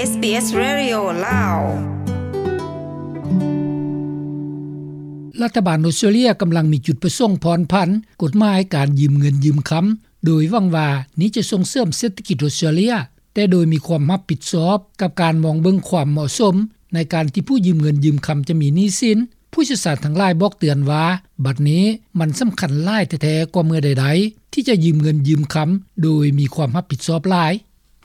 ເອສບີເອສ ເຣດິໂອ ລາວ. ລັດຖະບານອົດສະຕຣາເລຍກຳລັງມີຈຸດປະສົງຜ່ອນຜັນກົດໝາຍການຢືມເງິນຢືມຄຳ ໂດຍຫວັງວ່ານີ້ຈະສົ່ງເສີມເສດຖະກິດອົດສະຕຣາເລຍ, ແຕ່ໂດຍມີຄວາມຮັບຜິດຊອບກັບການມອງເບິ່ງຄວາມເໝາະສົມໃນການທີ່ຜູ້ຢືມເງິນຢືມຄຳຈະມີໜີ້ສິນ. ຜູ້ຊ່ຽວຊານທັງຫຼາຍບອກເຕືອນວ່າ ບັດນີ້ມັນສຳຄັນຫຼາຍແທ້ໆກວ່າເມື່ອໃດໆ ທີ່ຈະຢືມເງິນຢືມຄຳໂດຍມີຄວາມຮັບຜິດຊອບຫຼາຍ.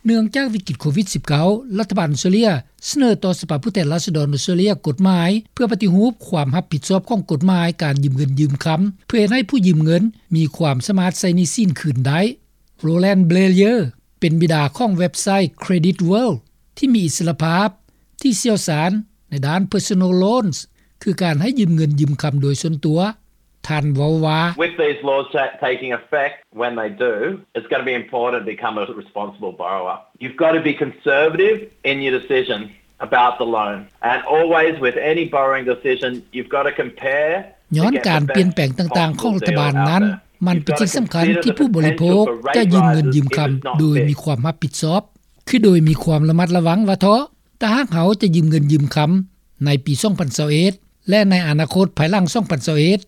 ເນື່ອງຈາກວິກິດໂຄວິດສິບເກົ້າ ລັດຖະບານອົດສະຕຣາເລຍສະເໜີຕໍ່ສະພາຜູ້ແທນລາຊະດອນອົດສະຕຣາເລຍກົດໝາຍ ເພື່ອປະຕິຮູບຄວາມຮັບຜິດຊອບຂອງກົດໝາຍການຢືມເງິນຢືມຄຳ ເພື່ອເຮັດໃຫ້ຜູ້ຢືມເງິນມີຄວາມສາມາດໃຊ້ໜີ້ສິນຄືນໄດ້. Roland Blayer ເປັນບິດາຂອງເວັບໄຊ Credit World ທີ່ມີອິດສະຫຼະພາບ, ທີ່ຊ່ຽວຊານໃນດ້ານ Personal Loans ຄືການໃຫ້ຢືມເງິນຢືມຄຳໂດຍສ່ວນຕົວ. ທ່ານເວົ້າວ່າ With these laws ta- taking effect, when they do, it's going to be important to become a responsible borrower. You've got to be conservative in your decision about the loan. And always with any borrowing decision, you've got to compare ຍ້ອນການປ່ຽນແປງຕ່າງໆຂອງລັດຖະບານນັ້ນ, ມັນເປັນສິ່ງສຳຄັນທີ່ຜູ້ບໍລິໂພກຈະຢືມເງິນຢືມຄຳໂດຍມີຄວາມຮັບຜິດຊອບ, ຄືໂດຍມີຄວາມລະມັດລະວັງວ່າເທາະ ຖ້າຫາກເຮົາຈະຢືມເງິນຢືມຄຳໃນປີສອງພັນຊາວເອັດ ແລະ ໃນອະນາຄົດພາຍຫຼັງສອງພັນຊາວເອັດ.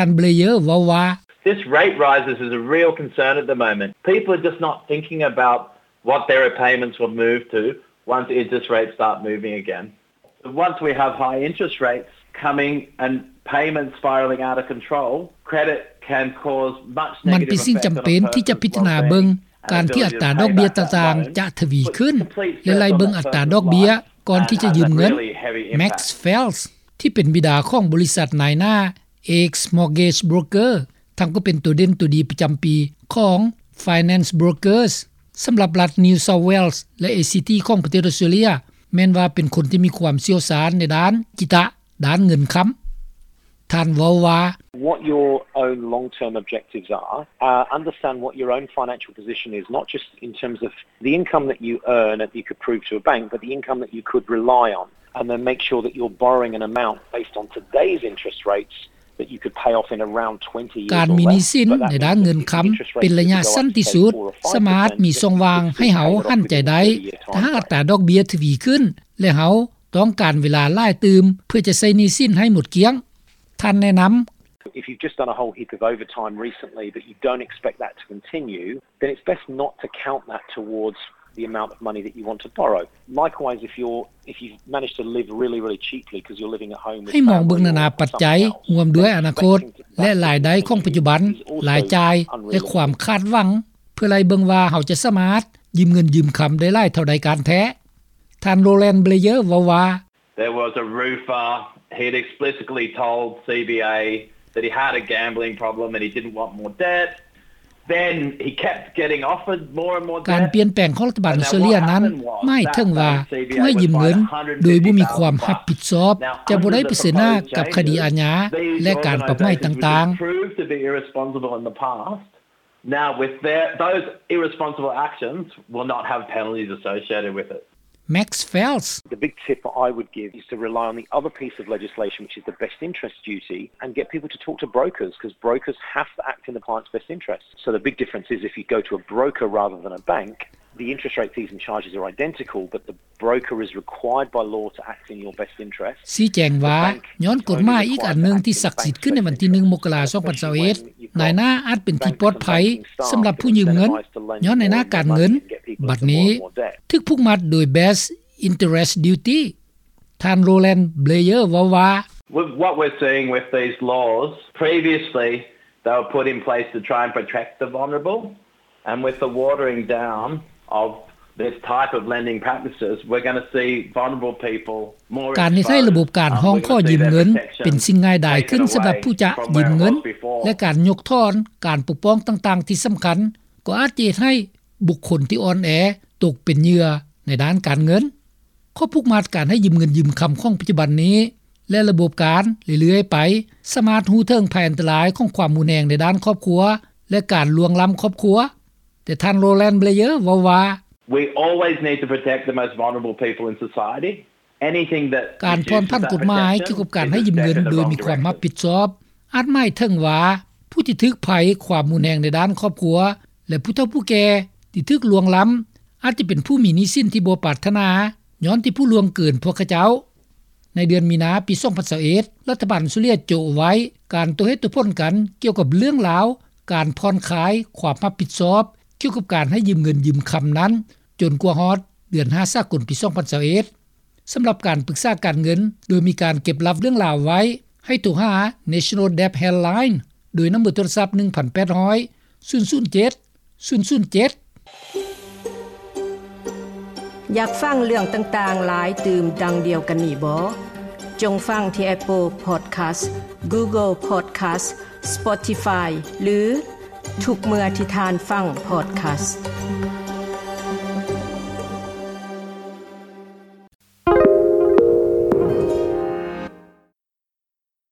ທ່ານ Blayer ເວົ້າວ່າ This rate rises is a real concern at the moment. People are just not thinking about what their repayments will move to once interest rates start moving again. Once we have high interest rates coming and payments spiralling out of control, credit can cause much negative effect on a person's ມັນເປັນສິ່ງຈຳເປັນທີ່ຈະພິຈາລະນາເບິ່ງການທີ່ອັດຕາດອກເບ້ຍຕ່າງໆຈະທະວີຂຶ້ນ ແລະ ໄລ່ເບິ່ງອັດຕາດອກເບ້ຍກ່ອນທີ່ຈະຢືມເງິນ. Max Fels ທີ່ເປັນບິດາຂອງບໍລິສັດນາຍໜ້າ X Mortgage Broker ທັງກໍເປັນໂຕເດັ່ນໂຕດີປະຈຳປີຂອງ Finance Brokers ສຳລັບລັດ New South Wales ແລະ ACT ຂອງປະເທດອົດສະຕຣາເລຍ ແມ່ນວ່າເປັນຄົນທີ່ມີຄວາມຊ່ຽວຊານໃນດ້ານກິຕະ ດ້ານເງິນຄຳ. ທ່ານເວົ້າວ່າ What your own long-term objectives are, uh, understand what your own financial position is, not just in terms of the income that you earn that you could prove to a bank, but the income that you could rely on, and then make sure that you're borrowing an amount based on today's interest rates that you could pay off in around twenty years or less. ການມີໜີ້ສິນໃນດ້ານເງິນຄຳເປັນໄລຍະສັ້ນທີ່ສຸດ ສາມາດມີຊ່ອງວ່າງໃຫ້ເຮົາຫັນໃຈໄດ້ ຖ້າຫາກອັດຕາດອກເບ້ຍທະວີຂຶ້ນ ແລະ ເຮົາຕ້ອງການເວລາຫຼາຍຕື່ມເພື່ອຈະໃຊ້ໜີ້ສິນໃຫ້ໝົດກ້ຽງ. ທ່ານແນະນຳ If you've just done a whole heap of overtime recently, but you don't expect that to continue, then it's best not to count that towards the amount of money that you want to borrow. Likewise, if you're, if you've managed to live really, really cheaply 'cause you're living at home with family or something else, ໃຫ້ມອງເບິ່ງນານາປັດໄຈ ຮ່ວມດ້ວຍອະນາຄົດ ແລະ ລາຍໄດ້ຂອງປັດຈຸບັນ, ລາຍຈ່າຍ ແລະ ຄວາມຄາດຫວັງ ເພື່ອໄລ່ເບິ່ງວ່າເຮົາຈະສາມາດຢືມເງິນຢືມຄຳໄດ້ຫຼາຍເທົ່າໃດກັນແທ້. ທ່ານ Roland Blayer ເວົ້າວ່າ There was a roofer. He'd explicitly told CBA that he had a gambling problem and he didn't want more debt. Then he kept getting offered more and more debt. ການປ່ຽນແປງຂອງລັດຖະບານອົດສະຕຣາເລຍນັ້ນ ໝາຍເຖິງວ່າຜູ້ໃຫ້ຢືມເງິນໂດຍບໍ່ມີຄວາມຮັບຜິດຊອບ ຈະບໍ່ໄດ້ປະເຊີນໜ້າກັບຄະດີອາຍາ ແລະ ການປັບໃໝຕ່າງໆ. Proved to be irresponsible in the past. Now, with their, those irresponsible actions will not have penalties associated with it. Max Fels. The big tip I would give is to rely on the other piece of legislation, which is the best interest duty, and get people to talk to brokers, 'cause brokers have to act in the client's best interest. So the big difference is if you go to a broker rather than a bank, the interest rate, fees and charges are identical, but the broker is required by law to act in your best interest. ຊີ້ແຈງວ່າ ຍ້ອນກົດໝາຍອີກອັນໜຶ່ງທີ່ສັກສິດຂຶ້ນໃນວັນທີໜຶ່ງ ມົກກະລາ ສອງພັນຊາວເອັດ ນາຍໜ້າອາດເປັນທີ່ປອດໄພສຳລັບຜູ້ຢືມເງິນ ຍ້ອນນາຍໜ້າການເງິນ ບັດນີ້ຖືກຜູກມັດໂດຍ Best Interest Duty. ທ່ານ Roland Blayer ເວົ້າວ່າ With what we're seeing with these laws, previously they were put in place to try and protect the vulnerable, and with the watering down of this type of lending practices, we're gonna see vulnerable people more exposed. ການເຮັດໃຫ້ລະບົບການຮ້ອງຂໍຢືມເງິນເປັນສິ່ງງ່າຍດາຍຂຶ້ນສຳລັບຜູ້ຈະຢືມເງິນ ແລະ ການຍົກຖອນການປົກປ້ອງຕ່າງໆທີ່ສຳຄັນ ກໍອາດຈະເຮັດໃຫ້ບຸກຄົນທີ່ອ່ອນແອຕົກເປັນເຫຍື່ອໃນດ້ານການເງິນ. ຂໍ້ຜູກມັດການໃຫ້ຢືມເງິນຢືມຄຳຂອງປັດຈຸບັນນີ້ ແລະ ລະບົບການເລື້ອຍໆໄປ ສາມາດຮູ້ເຖິງໄພອັນຕະລາຍຂອງຄວາມຮຸນແຮງໃນດ້ານຄອບຄົວ ແລະ ການລ່ວງລ້ຳຄອບຄົວ. ແຕ່ທ່ານ Roland Blayer ເວົ້າວ່າ We always need to protect the most vulnerable people in society. Anything that ການຜ່ອນຜັນກົດໝາຍກ່ຽວກັບການໃຫ້ຢືມເງິນໂດຍມີຄວາມຮັບຜິດຊອບ ອາດໝາຍເຖິງວ່າ ຜູ້ທີ່ຖືກໄພຄວາມຮຸນແຮງໃນດ້ານຄອບຄົວ ແລະ ຜູ້ເຖົ້າຜູ້ແກ່ທີ່ຖືກລ່ວງລ້ຳ ອາດຈະເປັນຜູ້ມີໜີ້ສິນທີ່ບໍ່ປາດຖະໜາ ຍ້ອນທີ່ຜູ້ລ່ວງເກີນພວກຂະເຈົ້າ. ໃນເດືອນມີນາ ປີ ສອງພັນຊາວເອັດ ລັດຖະບານອົດສະຕຣາເລຍໂຈະໄວ້ ການຕົວເຫດຕົວຜົນກັນ ກ່ຽວກັບເລື່ອງລາວ ການຜ່ອນຄາຍຄວາມຮັບຜິດຊອບ ກ່ຽວກັບການໃຫ້ຢືມເງິນຢືມຄຳນັ້ນ ຈົນກວ່າຮອດເດືອນ ຫ້າ ສາກົນ ປີ ສອງພັນຊາວເອັດ. ສຳລັບການປຶກສາການເງິນ ໂດຍມີການເກັບລັບເລື່ອງລາວໄວ້ ໃຫ້ໂທຫາ National Debt Helpline ໂດຍນຳເບີໂທລະສັບ ໜຶ່ງພັນແປດຮ້ອຍ ສູນສູນເຈັດ ສູນສູນເຈັດ. ຢາກຟັງເລື່ອງຕ່າງໆຫຼາຍຕື່ມດັ່ງດຽວກັນນີ້ບໍ່? ຈົ່ງຟັງທີ່ Apple Podcast, Google Podcast, Spotify ຫຼື ທຸກເມື່ອທີ່ທ່ານຟັງ podcast.